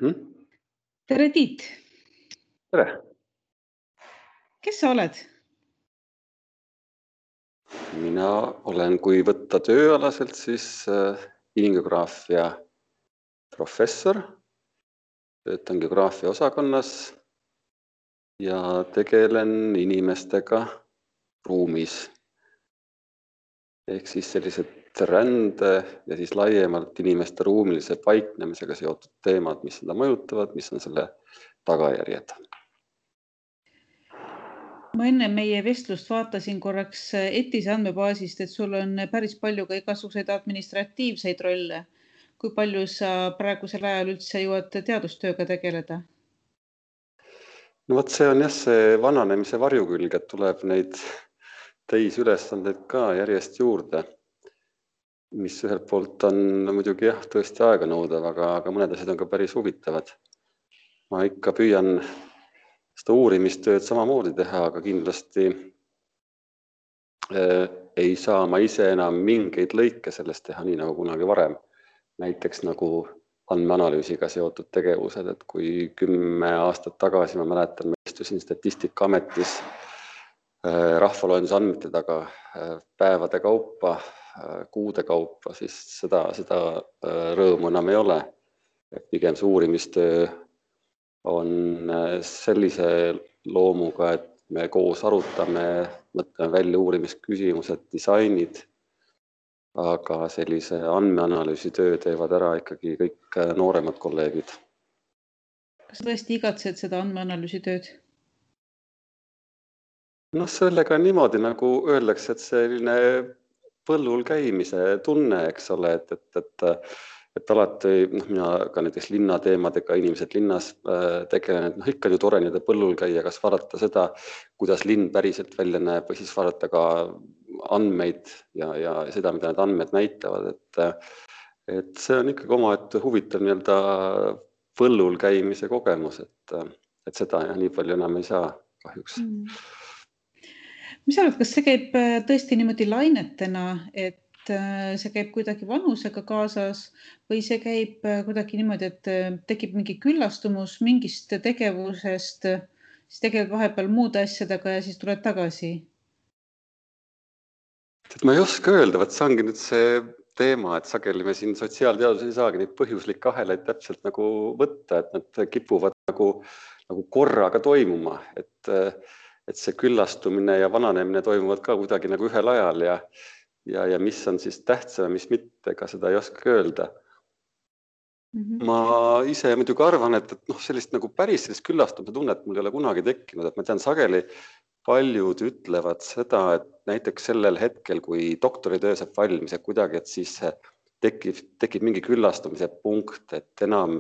Mhm. Tere, Tiit! Tere! Kes sa oled? Mina olen, kui võtta tööalaselt, siis inimgeograafia professor, töötan geograafia osakonnas ja tegelen inimestega ruumis. Ehk siis sellised rände ja siis laiemalt inimeste ruumilise paiknemisega seotud teemad, mis seda mõjutavad, mis on selle tagajärjed. Ma enne meie vestlust vaatasin korraks ETIS andmebaasist, et sul on päris palju ka igasuguseid administratiivseid rolle. Kui palju sa praegusel ajal üldse jõuad teadustööga tegeleda? No vot, see on jah see vananemise varjukülg, et tuleb neid teisülesandeid ka järjest juurde, mis ühelt poolt on muidugi jah, tõesti aega nõudav, aga mõned asjad on ka päris huvitavad. Ma ikka püüan seda uurimistööd samamoodi teha, aga kindlasti ei saa ma ise enam mingeid lõike sellest teha nii nagu kunagi varem. Näiteks nagu andmeanalüüsiga seotud tegevused, et kui 10 aastat tagasi, ma mäletan, ma istusin Statistikaametis rahvaloenduse andmete taga päevade kaupa, kuude kaupa, siis seda rõõmu enam ei ole. Pigem see uurimistöö on sellise loomuga, et me koos arutame, mõtleme välja uurimisküsimused, disainid, aga sellise andmeanalüüsi töö teevad ära ikkagi kõik nooremad kolleegid. Kas tõesti igatsed seda andmeanalüüsi tööd? No sellega on niimoodi, nagu öeldakse, et selline põllul käimise tunne, eks ole, et alati, mina ka näiteks linnateemadega, inimesed linnas tegelen, et ikka ju tore nii põllul käia, kas vaadata seda, kuidas linn päriselt välja näeb, või siis vaadata ka andmeid ja seda, mida need andmed näitavad, et see on ikkagi omaette huvitav nii-öelda põllul käimise kogemus, et seda nii palju enam ei saa kahjuks. Mis sa arvad, kas see käib tõesti niimoodi lainetena, et see käib kuidagi vanusega kaasas või see käib kuidagi niimoodi, et tekib mingi küllastumus mingist tegevusest, siis tegeled vahepeal muude asjadega ja siis tuled tagasi? Ma ei oska öelda, see ongi nüüd see teema, et sageli me siin sotsiaalteaduses ei saagi neid põhjuslikke ahelaid täpselt nagu võtta, et nad kipuvad nagu korraga toimuma, et see küllastumine ja vananemine toimuvad ka kuidagi nagu ühel ajal ja mis on siis tähtsam, mis mitte, ega seda ei oska öelda. Ma ise muidugi arvan, et sellist nagu päris sellist küllastumise tunnet mul ei ole kunagi tekkinud, et ma tean sageli paljud ütlevad seda, et näiteks sellel hetkel, kui doktoritöö saab valmis, et kuidagi, et siis tekib mingi küllastumise punkt, et enam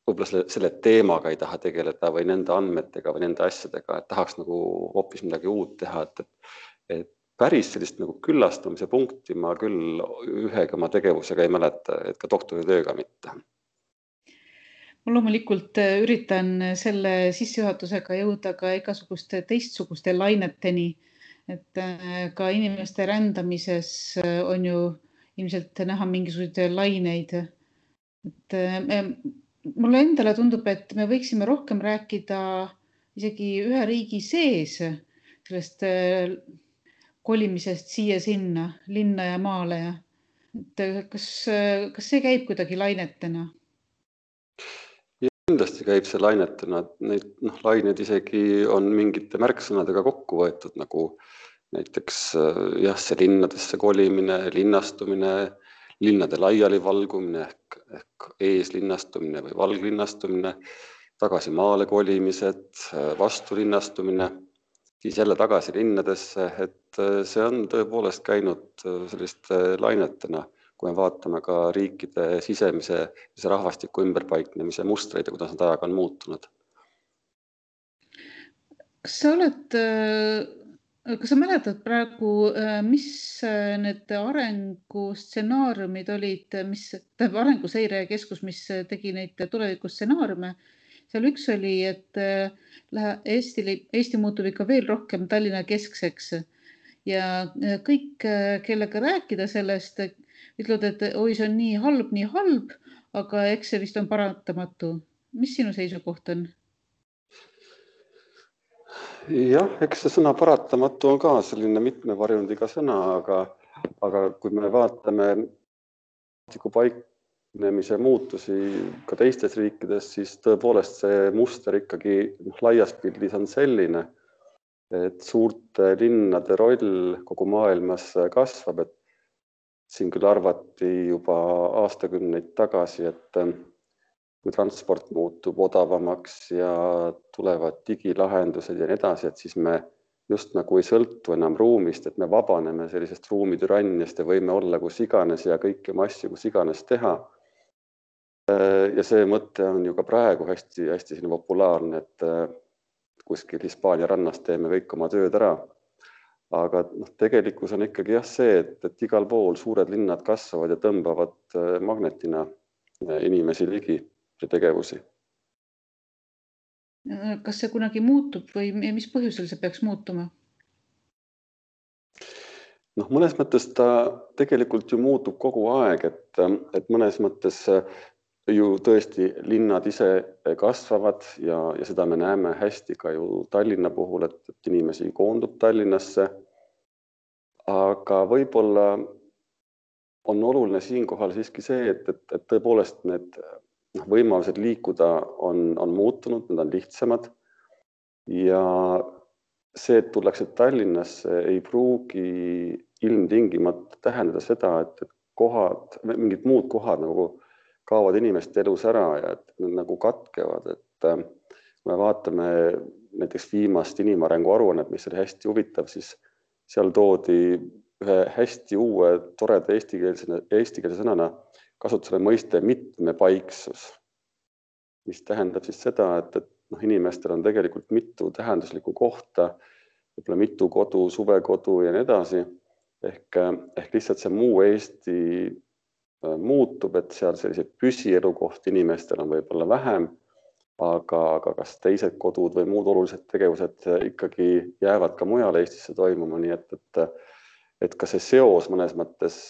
võib-olla selle teemaga ei taha tegeleda või nende andmetega või nende asjadega, et tahaks nagu hoopis midagi uut teha, et päris sellist nagu küllastumise punkti ma küll ühega oma tegevusega ei mäleta, et ka doktoritööga mitte. Ma loomulikult üritan selle sissejuhatusega jõuda ka igasuguste teistsuguste laineteni, et ka inimeste rändamises on ju ilmselt näha mingisuguseid laineid. Et mulle endale tundub, et me võiksime rohkem rääkida isegi ühe riigi sees sellest kolimisest siia-sinna, linna ja maale. Kas see käib kuidagi lainetena? Kindlasti käib see lainetena, neid laineid isegi on mingite märksõnadega kokku võetud, nagu näiteks see linnadesse kolimine, linnastumine, linnade laialivalgumine ehk eeslinnastumine või valglinnastumine, tagasi maale kolimised, vastulinnastumine, siis jälle tagasi linnadesse, et see on tõepoolest käinud selliste lainetena, kui me vaatame ka riikide sisemise rahvastiku ümberpaiknemise mustreid ja kuidas nad ajaga on muutunud. Kas sa mäletad praegu, mis need arengustsenaariumid olid, Arenguseire Keskus, mis tegi neid tulevikustsenaariume? Seal üks oli, et Eesti muutub ikka veel rohkem Tallinna keskseks ja kõik, kellega rääkida sellest, ütlevad, et oi, see on nii halb, aga eks see vist on paratamatu. Mis sinu seisukoht on? Jah, eks see sõna paratamatu on ka selline mitmevarjundiga sõna, aga kui me vaatame paiknemise muutusi ka teistes riikides, siis tõepoolest see muster ikkagi laias pildis on selline, et suurte linnade roll kogu maailmas kasvab, et siin küll arvati juba aastakümneid tagasi, et kui transport muutub odavamaks ja tulevad digilahendused ja nii edasi, et siis me just nagu ei sõltu enam ruumist, et me vabaneme sellisest ruumitüranniast ja võime olla kus iganes ja kõiki oma asju kus iganes teha. Ja see mõte on ju ka praegu hästi populaarne, et kuskil Hispaania rannas teeme kõik oma tööd ära. Aga tegelikkus on ikkagi jah see, et igal pool suured linnad kasvavad ja tõmbavad magnetina inimesi ligi ja tegevusi. Kas see kunagi muutub või mis põhjusel see peaks muutuma? Mõnes mõttes ta tegelikult ju muutub kogu aeg, et mõnes mõttes ju tõesti linnad ise kasvavad ja seda me näeme hästi ka ju Tallinna puhul, et inimesi koondub Tallinnasse. Aga võib-olla on oluline siinkohal siiski see, et tõepoolest need võimalused liikuda on muutunud, need on lihtsamad ja see, et tullakse Tallinnasse, ei pruugi ilmtingimata tähendada seda, et mingid muud kohad nagu kaovad inimeste elus ära ja et need nagu katkevad, et kui me vaatame näiteks viimast inimarengu aruannet, mis oli hästi huvitav, siis seal toodi ühe hästi uue toreda eestikeelse sõnana kasutusele mõiste mitmepaiksus, mis tähendab siis seda, et inimestel on tegelikult mitu tähenduslikku kohta, võib-olla mitu kodu, suvekodu ja nii edasi, ehk lihtsalt see muu Eesti muutub, et seal selliseid püsielukohti inimestel on võib-olla vähem, aga kas teised kodud või muud olulised tegevused ikkagi jäävad ka mujal Eestisse toimuma, nii et ka see seos mõnes mõttes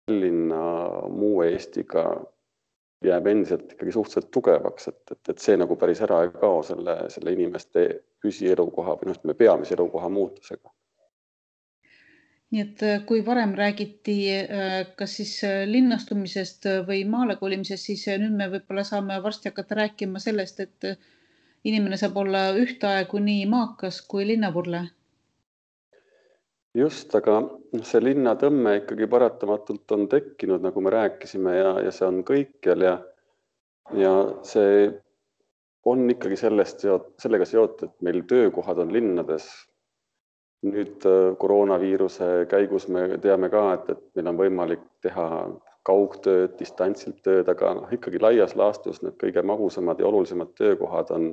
Tallinna muu Eestiga jääb endiselt ikkagi suhteliselt tugevaks, et see nagu päris ära ei kao selle inimeste püsielukoha või peamise elukoha muutusega. Nii et kui varem räägiti kas siis linnastumisest või maale kolimisest, siis nüüd me võib-olla saame varsti hakata rääkima sellest, et inimene saab olla ühtaegu nii maakas kui linnavurle. Just, aga see linnatõmme ikkagi paratamatult on tekkinud, nagu me rääkisime, ja see on kõikjal ja see on ikkagi sellega seotud, et meil töökohad on linnades. Nüüd koroonaviiruse käigus me teame ka, et meil on võimalik teha kaugtööd, distantsilt tööd, aga ikkagi laias laastus need kõige magusamad ja olulisemad töökohad on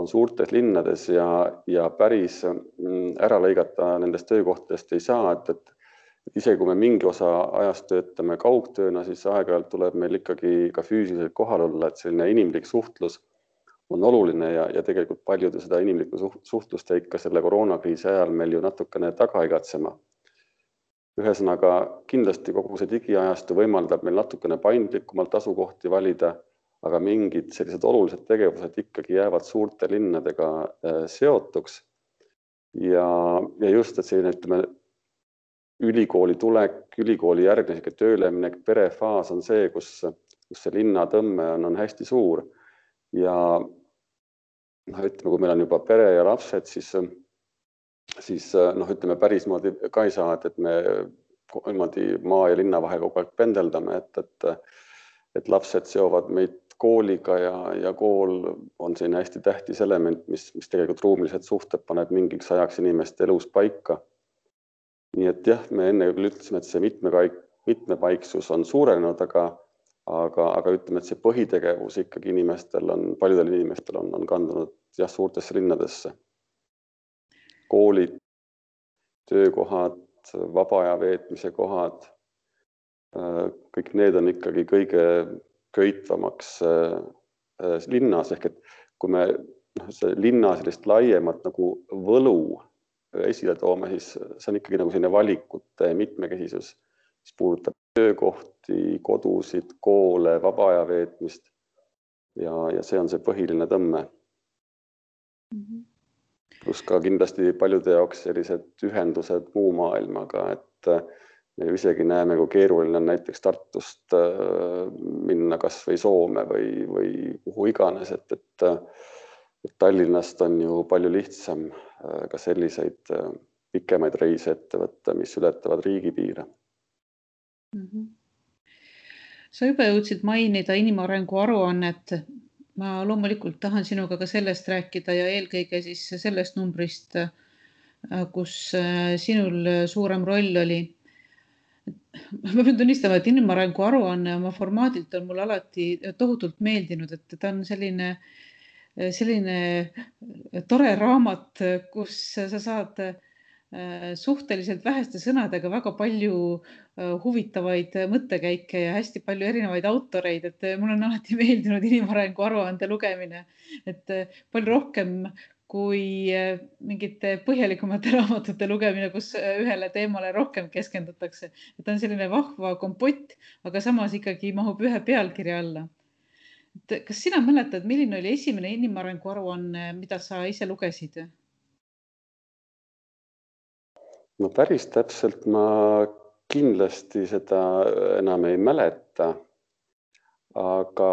suurtes linnades ja päris ära lõigata nendest töökohtadest ei saa, et isegi kui me mingi osa ajast töötame kaugtööna, siis aeg-ajalt tuleb meil ikkagi ka füüsiliselt kohal olla, et selline inimlik suhtlus on oluline ja tegelikult paljud seda inimlikku suhtlust ikka selle koroonakriisi ajal meil ju natukene taga igatsema. Ühesõnaga, kindlasti kogu see digiajastu võimaldab meil natukene paindlikumalt asukohti valida, aga mingid sellised olulised tegevused ikkagi jäävad suurte linnadega seotuks. Ja just, et selline ülikooli tulek, ülikooli järgne tööleminek, perefaas on see, kus see linnatõmme on hästi suur. Ja ütleme, kui meil on juba pere ja lapsed, siis ütleme pärismoodi ka ei saa, et me maa ja linna vahel kogu aeg pendeldame, et lapsed seovad meid kooliga ja kool on selline hästi tähtis element, mis tegelikult ruumilised suhted paneb mingiks ajaks inimeste elus paika. Nii et jah, me enne küll ütlesime, et see mitmepaiksus on suurenenud, aga ütleme, et see põhitegevus ikkagi paljudel inimestel on kandunud suurtesse linnadesse. Koolid, töökohad, vaba aja veetmise kohad, kõik need on ikkagi kõige köitvamaks linnas, ehk et kui me linna sellist laiemat nagu võlu esile toome, siis see on ikkagi nagu selline valikute mitmekesisus, mis puudutab töökohti, kodusid, koole, vaba aja veetmist. ja see on see põhiline tõmme. Plus ka kindlasti paljude jaoks sellised ühendused muu maailmaga, et me isegi näeme, kui keeruline on näiteks Tartust minna kas või Soome või kuhu iganes, et Tallinnast on ju palju lihtsam ka selliseid pikemaid reise ette võtta, mis ületavad riigipiire. Sa juba jõudsid mainida inimarengu aruannet. Ma loomulikult tahan sinuga ka sellest rääkida ja eelkõige siis sellest numbrist, kus sinul suurem roll oli. Ma pean tunnistama, et inimarengu aruanne oma formaadilt on mulle alati tohutult meeldinud, et ta on selline tore raamat, kus sa saad suhteliselt väheste sõnadega väga palju huvitavaid mõttekäike ja hästi palju erinevaid autoreid, et mul on alati meeldinud inimarengu aruande lugemine, et palju rohkem kui mingite põhjalikumate raamatute lugemine, kus ühele teemale rohkem keskendutakse. Ta on selline vahva kompott, aga samas ikkagi mahub ühe pealkirja alla. Kas sina mäletad, milline oli esimene inimarengu aruanne, mida sa ise lugesid? No päris täpselt ma kindlasti seda enam ei mäleta, aga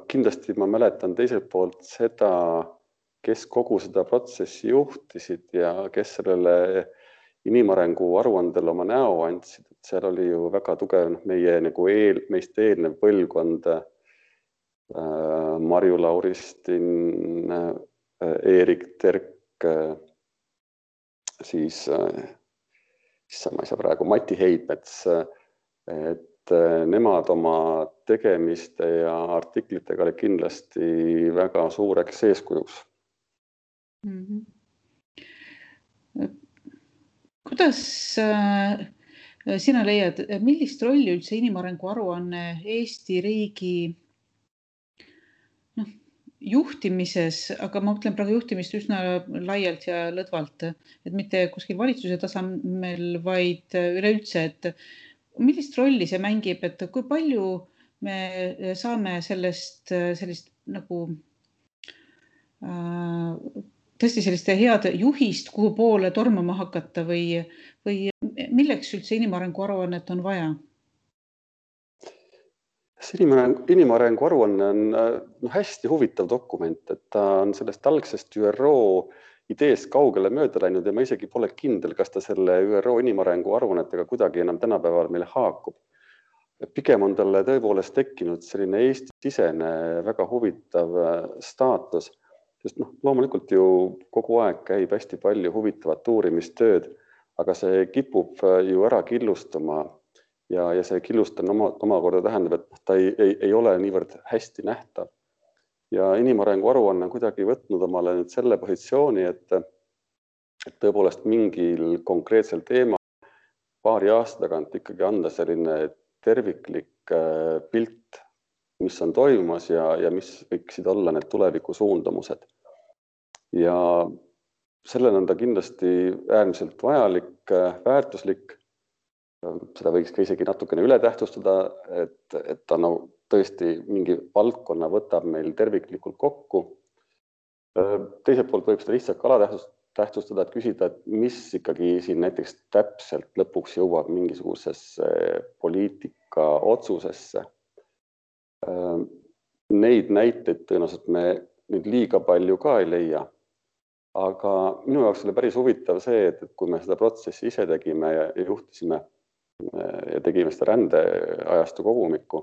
kindlasti ma mäletan teiselt poolt seda, kes kogu seda protsessi juhtisid ja kes sellele inimarengu aruandele oma näo andsid. Seal oli ju väga tugev meie nagu meist eelnev põlvkond, Marju Lauristin, Eerik Terk, siis ma ei saa praegu, Mati Heidmets, et nemad oma tegemiste ja artiklitega oli kindlasti väga suureks eeskujuks. Kuidas sina leiad, millist rolli üldse inimarengu aruanne Eesti riigi juhtimises, aga ma mõtlen praegu juhtimist üsna laialt ja lõdvalt, et mitte kuskil valitsuse tasemel, vaid üleüldse, et millist rolli see mängib, et kui palju me saame sellist nagu tõesti selliste head juhist, kuhu poole tormama hakata või milleks üldse inimarengu aruannet on vaja? Inimarengu aruanne on hästi huvitav dokument, et ta on sellest algsest ÜRO ideest kaugele mööda läinud ja ma isegi pole kindel, kas ta selle ÜRO inimarengu aruannetega kuidagi enam tänapäeval meil haakub. Pigem on talle tõepoolest tekkinud selline Eesti-sisene väga huvitav staatus, sest loomulikult ju kogu aeg käib hästi palju huvitavat uurimistööd, aga see kipub ju ära killustuma. Ja see killustamine omakorda tähendab, et ta ei ole niivõrd hästi nähtav. Ja inimarengu aruanne on kuidagi võtnud omale nüüd selle positsiooni, et tõepoolest mingil konkreetsel teema paari aasta tagant ikkagi anda selline terviklik pilt, mis on toimumas ja mis võiksid olla need tuleviku suundumused. Ja sellel on ta kindlasti äärmiselt vajalik, väärtuslik. Seda võiks ka isegi natukene üle tähtsustada, et ta tõesti mingi valdkonna võtab meil terviklikult kokku. Teiselt poolt võib seda lihtsalt alatähtsustada, et küsida, et mis ikkagi siin näiteks täpselt lõpuks jõuab mingisugusesse poliitika otsusesse. Neid näiteid tõenäoliselt me nüüd liiga palju ka ei leia, aga minu jaoks oli päris huvitav see, et kui me seda protsessi ise tegime ja juhtisime ja tegime seda rändeajastu kogumikku,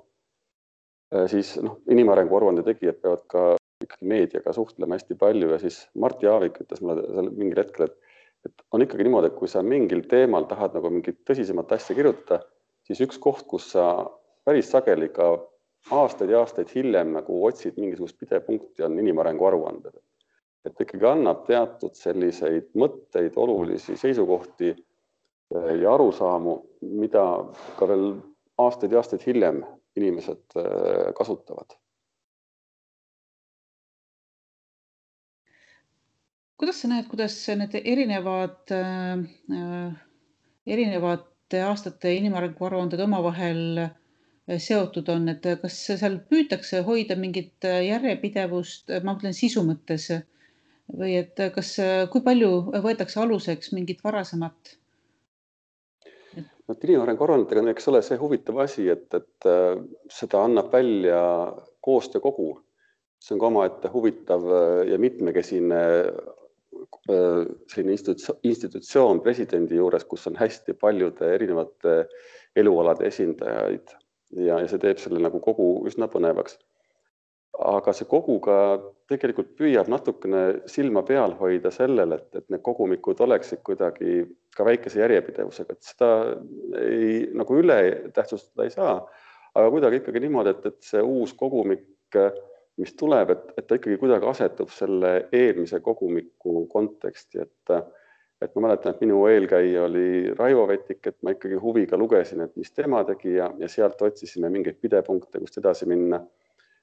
siis inimarengu aruande tegijad peavad ka ikkagi meediaga suhtlema hästi palju ja siis Mart Jaavik ütles mulle mingil hetkel, et on ikkagi niimoodi, et kui sa mingil teemal tahad nagu mingit tõsisemat asja kirjutada, siis üks koht, kus sa päris sageli ka aastaid ja aastaid hiljem nagu otsid mingisugust pidepunkti, on inimarengu aruanded. Et ikkagi annab teatud selliseid mõtteid, olulisi seisukohti ja arusaamu, mida ka veel aastaid ja aastaid hiljem inimesed kasutavad. Kuidas sa näed, kuidas need erinevate aastate inimarengu aruanded omavahel seotud on, et kas seal püütakse hoida mingit järjepidevust, ma mõtlen sisu mõttes, või et kui palju võetakse aluseks mingit varasemat? Inimarengu aruannetega on eks ole see huvitav asi, et seda annab välja koostöökogu. See on ka omaette huvitav ja mitmekesine selline institutsioon presidendi juures, kus on hästi paljude erinevate elualade esindajaid ja see teeb selle nagu kogu üsna põnevaks. Aga see kogu ka tegelikult püüab natukene silma peal hoida sellele, et need kogumikud oleksid kuidagi ka väikese järjepidevusega, et seda ei, nagu üle tähtsustada ei saa, aga kuidagi ikkagi niimoodi, et see uus kogumik, mis tuleb, et ta ikkagi kuidagi asetub selle eelmise kogumiku konteksti, et ma mäletan, et minu eelkäija oli Raivo Vettik, et ma ikkagi huviga lugesin, et mis tema tegi ja sealt otsisime mingeid pidepunkte, kust edasi minna.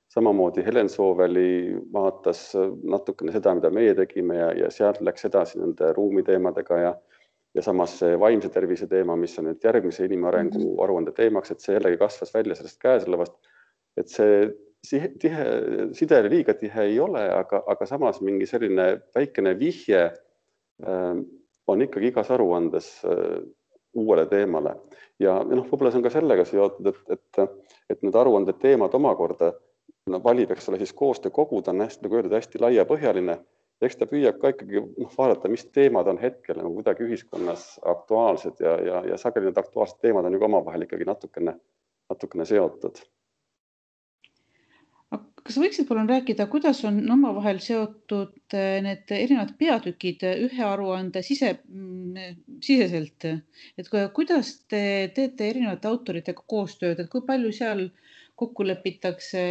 Samamoodi Helen Sooveli vaatas natukene seda, mida meie tegime ja sealt läks edasi nende ruumiteemadega ja samas see vaimse tervise teema, mis on nüüd järgmise inimarengu aruande teemaks, et see jällegi kasvas välja sellest käesolevast, et see side liiga tihe ei ole, aga samas mingi selline väikene vihje on ikkagi igas aruandes uuele teemale. Ja võib-olla see on ka sellega seotud, et need aruande teemad omakorda valib, eks ole, siis koostöökogu, ta on nagu öeldud hästi laiapõhjaline. Eks ta püüab ka ikkagi vaadata, mis teemad on hetkel nagu kuidagi ühiskonnas aktuaalsed ja sageli need aktuaalsed teemad on ju omavahel ikkagi natukene seotud. Kas võiksid palun rääkida, kuidas on omavahel seotud need erinevad peatükid ühe aruande siseselt? Et kuidas te teete erinevate autoritega koostööd, et kui palju seal kokku lepitakse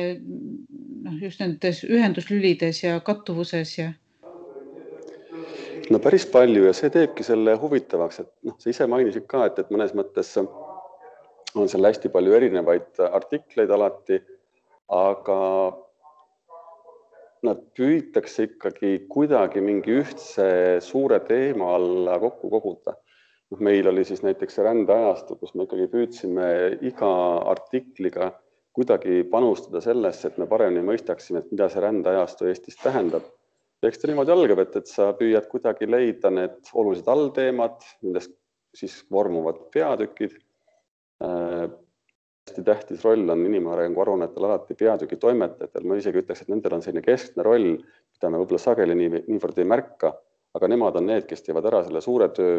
just nendes ühenduslülides ja kattuvuses ja? No päris palju ja see teebki selle huvitavaks, et sa ise mainisid ka, et mõnes mõttes on seal hästi palju erinevaid artikleid alati, aga nad püütakse ikkagi kuidagi mingi ühtse suure teema alla kokku koguda. Meil oli siis näiteks rändeajastu, kus me ikkagi püüdsime iga artikliga kuidagi panustada sellesse, et me paremini mõistaksime, et mida see rändeajastu Eestis tähendab. Eks ta niimoodi algab, et sa püüad kuidagi leida need olulised allteemad, nendest siis vormuvad peatükid. Hästi tähtis roll on inimarengu aruannetel alati peatüki toimetajatel. Ma isegi ütleks, et nendel on selline keskne roll, mida me võib-olla sageli niivõrd ei märka, aga nemad on need, kes teevad ära selle suure töö,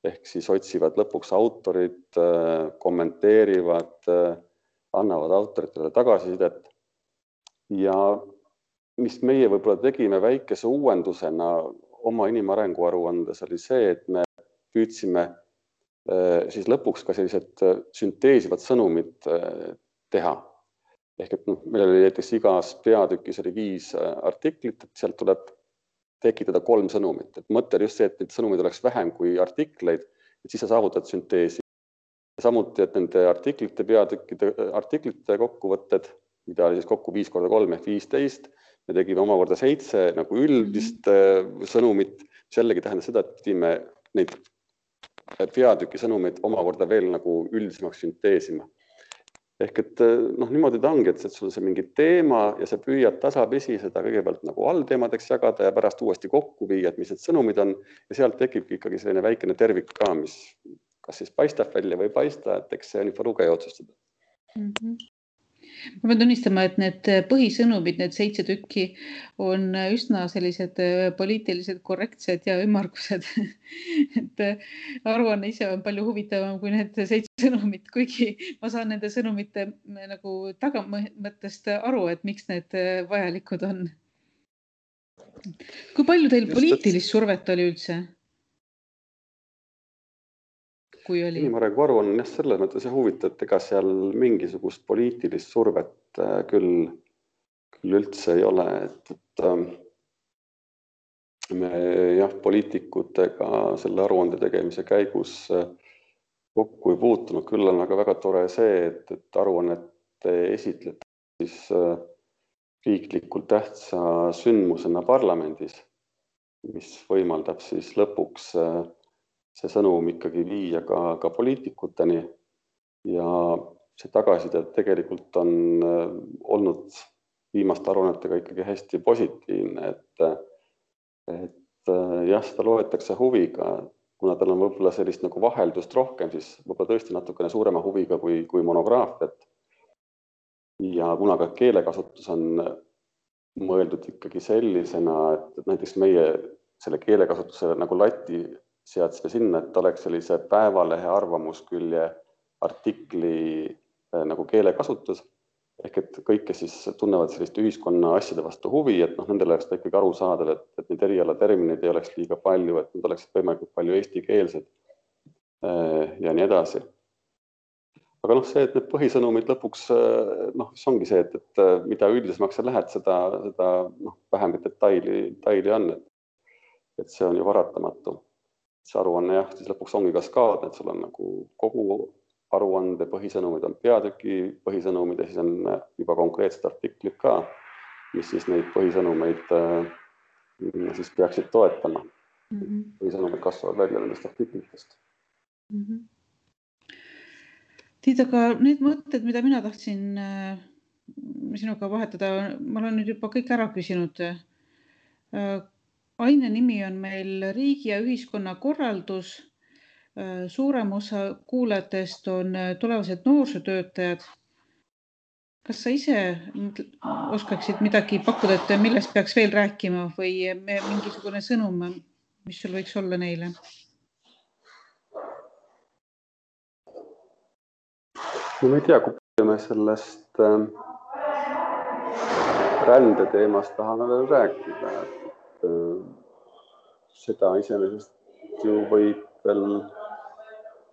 ehk siis otsivad lõpuks autorid, kommenteerivad, annavad autoritele tagasisidet. Ja mis meie võib-olla tegime väikese uuendusena oma inimarengu aruandes oli see, et me püüdsime siis lõpuks ka sellised sünteesivad sõnumid teha. Ehk et meil oli näiteks igas peatükis oli 5 artiklit, et sealt tuleb tekitada 3 sõnumit. Et mõte oli just see, et need sõnumid oleks vähem kui artikleid, et siis sa saavutad sünteesi. Samuti, et nende artiklite kokkuvõtted, mida oli siis kokku 5 × 3 ehk 15, me tegime omakorda 7 nagu üldist sõnumit, mis jällegi tähendas seda, et pidime neid peatüki sõnumeid omakorda veel nagu üldisemaks sünteesima. Ehk et niimoodi ta ongi, et sul on see mingi teema ja sa püüad tasapisi seda kõigepealt nagu allteemadeks jagada ja pärast uuesti kokku viia, et mis need sõnumid on ja sealt tekibki ikkagi selline väikene tervik ka, mis kas siis paistab välja või ei paista, et eks see on juba lugeja otsustada. Ma pean tunnistama, et need põhisõnumid, need 7 tükki on üsna sellised poliitilised korrektsed ja ümmargused. Et aruanne ise on palju huvitavam kui need 7 sõnumit, kuigi ma saan nende sõnumite nagu tagamõttest aru, et miks need vajalikud on. Kui palju teil poliitilist survet oli üldse? Inimarengu aruanne on selles mõttes huvitav, et ega seal mingisugust poliitilist survet küll üldse ei ole, et me poliitikutega selle aruande tegemise käigus kokku ei puutunud, küll on aga väga tore see, et aruannet esitleti siis riiklikult tähtsa sündmusena parlamendis, mis võimaldab siis lõpuks see sõnum ikkagi viia ka poliitikuteni ja see tagasiside tegelikult on olnud viimaste aruannetega ikkagi hästi positiivne, et jah, seda loetakse huviga, kuna tal on võib-olla sellist nagu vaheldust rohkem, siis võib-olla tõesti natukene suurema huviga kui monograafiat. Ja kuna ka keelekasutus on mõeldud ikkagi sellisena, et näiteks meie selle keelekasutuse nagu lati seadsime sinna, et oleks sellise päevalehe arvamuskülje artikli nagu keelekasutus, ehk et kõik, kes siis tunnevad sellist ühiskonna asjade vastu huvi, et nendel oleks ikkagi aru saada, et neid erialatermineid ei oleks liiga palju, et nad oleksid võimalikult palju eestikeelsed ja nii edasi. Aga see, et need põhisõnumid lõpuks, see ongi see, et mida üldisemaks sa lähed, seda vähem detaili on, et see on ju varatamatu. See aruanne jah, siis lõpuks ongi kaskaadne, et sul on nagu kogu aruande põhisõnumid on peatüki põhisõnumid ja siis on juba konkreetsed artiklid ka, mis siis neid põhisõnumeid siis peaksid toetama. Põhisõnumid kasvavad välja nendest artiklitest. Tiit, aga need mõtted, mida mina tahtsin sinuga vahetada, ma olen nüüd juba kõik ära küsinud. Aine nimi on meil riigi ja ühiskonna korraldus. Suurem osa kuulajatest on tulevased noorsootöötajad. Kas sa ise oskaksid midagi pakkuda, et millest peaks veel rääkima või mingisugune sõnum, mis sul võiks olla neile? Ma ei tea, kui me sellest rändeteemast tahame veel rääkida. Seda iseenesest ju võib veel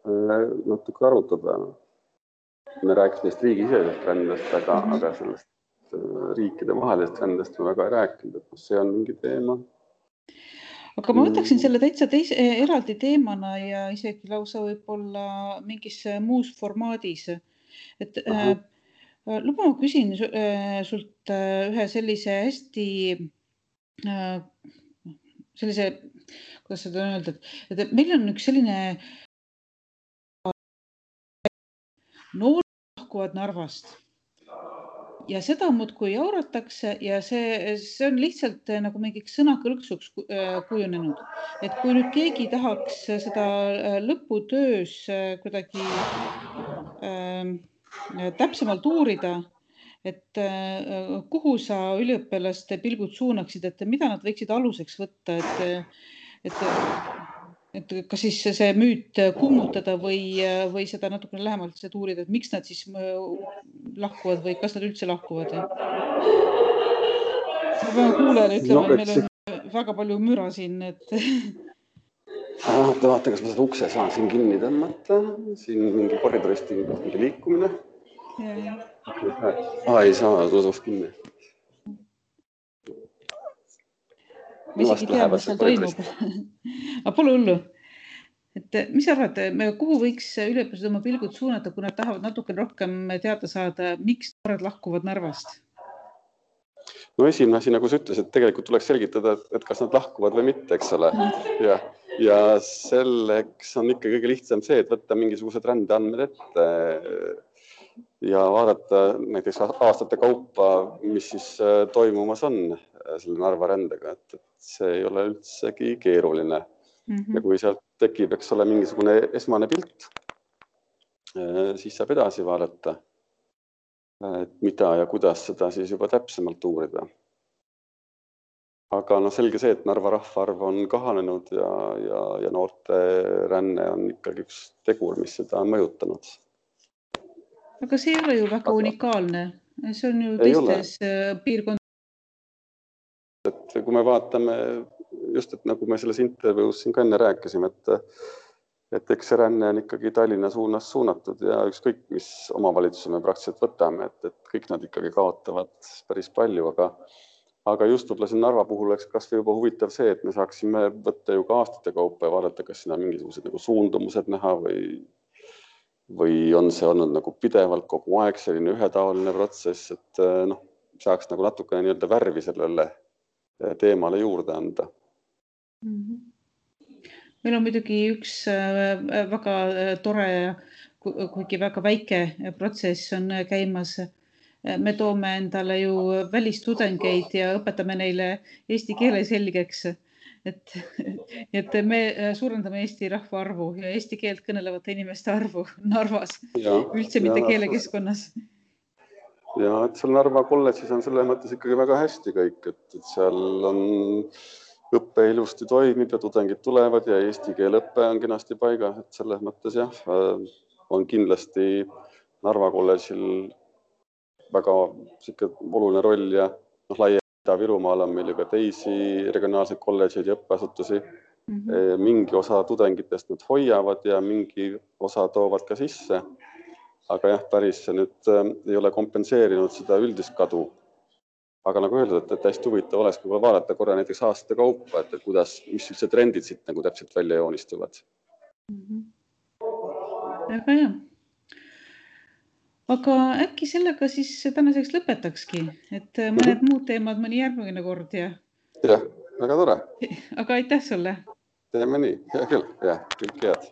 natuke arutada. Me rääkisime neist riigisisesest rändest, aga sellest riikide vahelist rändest me väga ei rääkinud, et see on mingi teema. Aga ma võtaksin selle täitsa eraldi teemana ja isegi lausa võib-olla mingis muus formaadis. Et luba ma küsin sult ühe sellise hästi kuidas seda on öeldud, et meil on üks selline noored lahkuvad Narvast ja seda muudkui jauratakse ja see on lihtsalt nagu mingiks sõnakõlksuks kujunenud. Et kui nüüd keegi tahaks seda lõputöös kuidagi täpsemalt uurida, et kuhu sa üliõpilaste pilgud suunaksid, et mida nad võiksid aluseks võtta, et kas siis see müüt kummutada või seda natukene lähemalt uurida, et miks nad siis lahkuvad või kas nad üldse lahkuvad? Ma pean kuulajale ütlema, et meil on väga palju müra siin. Vaata, kas ma seda ukse saan siin kinni tõmmata. Siin mingi koridorist mingi liikumine. Ei saa, tuus kinni. Ma isegi tea, mis seal toimub. Aga pole hullu. Et mis arvad, kuhu võiks üliõpilased oma pilgud suunata, kui nad tahavad natuke rohkem teada saada, miks noored lahkuvad Narvast? No esimene asi, nagu sa ütlesid, tegelikult tuleks selgitada, et kas nad lahkuvad või mitte, eks ole. Ja selleks on ikka kõige lihtsam see, et võtta mingisugused rändeandmed ette ja vaadata näiteks aastate kaupa, mis siis toimumas on selle Narva rändega, et see ei ole üldsegi keeruline. Ja kui sealt tekib, eks ole, mingisugune esmane pilt, siis saab edasi vaadata, et mida ja kuidas seda siis juba täpsemalt uurida. Aga selge see, et Narva rahvaarv on kahanenud ja noorte ränne on ikkagi üks tegur, mis seda on mõjutanud. Aga see ei ole ju väga unikaalne. See on ju teistes piirkondades. Et kui me vaatame just, et nagu me selles intervjuus siin ka enne rääkisime, et eks see ränne on ikkagi Tallinna suunas suunatud ja ükskõik, mis omavalitsuse me praktiliselt võtame, et kõik nad ikkagi kaotavad päris palju, aga just võib-olla siin Narva puhul oleks kas või juba huvitav see, et me saaksime võtta ju ka aastate kaupa ja vaadata, kas siin on mingisugused nagu suundumused näha või on see olnud nagu pidevalt kogu aeg selline ühetaoline protsess, et saaks nagu natukene nii-öelda värvi sellele teemale juurde anda. Meil on muidugi üks väga tore kuigi väga väike protsess on käimas. Me toome endale ju välistudengeid ja õpetame neile eesti keele selgeks. Et me suurendame Eesti rahvaarvu ja eesti keelt kõnelevate inimeste arvu Narvas, üldse mitte keelekeskkonnas. Ja, et seal Narva kolledžis on selles mõttes ikkagi väga hästi kõik, et seal on õppe ilusti toimib ja tudengid tulevad ja eesti keele õppe on kenasti paigas, et selles mõttes jah, on kindlasti Narva kolledžil väga oluline roll ja laia Ida-Virumaal on meil ju ka teisi regionaalseid kolledžeid ja õppeasutusi. Mingi osa tudengitest nad hoiavad ja mingi osa toovad ka sisse. Aga jah, päris see nüüd ei ole kompenseerinud seda üldist kadu. Aga nagu öeldud, et hästi huvitav oleks vaadata korra näiteks aastate kaupa, et kuidas, mis see trendid siit nagu täpselt välja joonistuvad. Väga hea. Aga äkki sellega siis tänaseks lõpetakski, et mõned muud teemad mõni järgmine kord ja... Jah, väga tore. Aga aitäh sulle. Teeme nii, hea küll, jah, kõik head.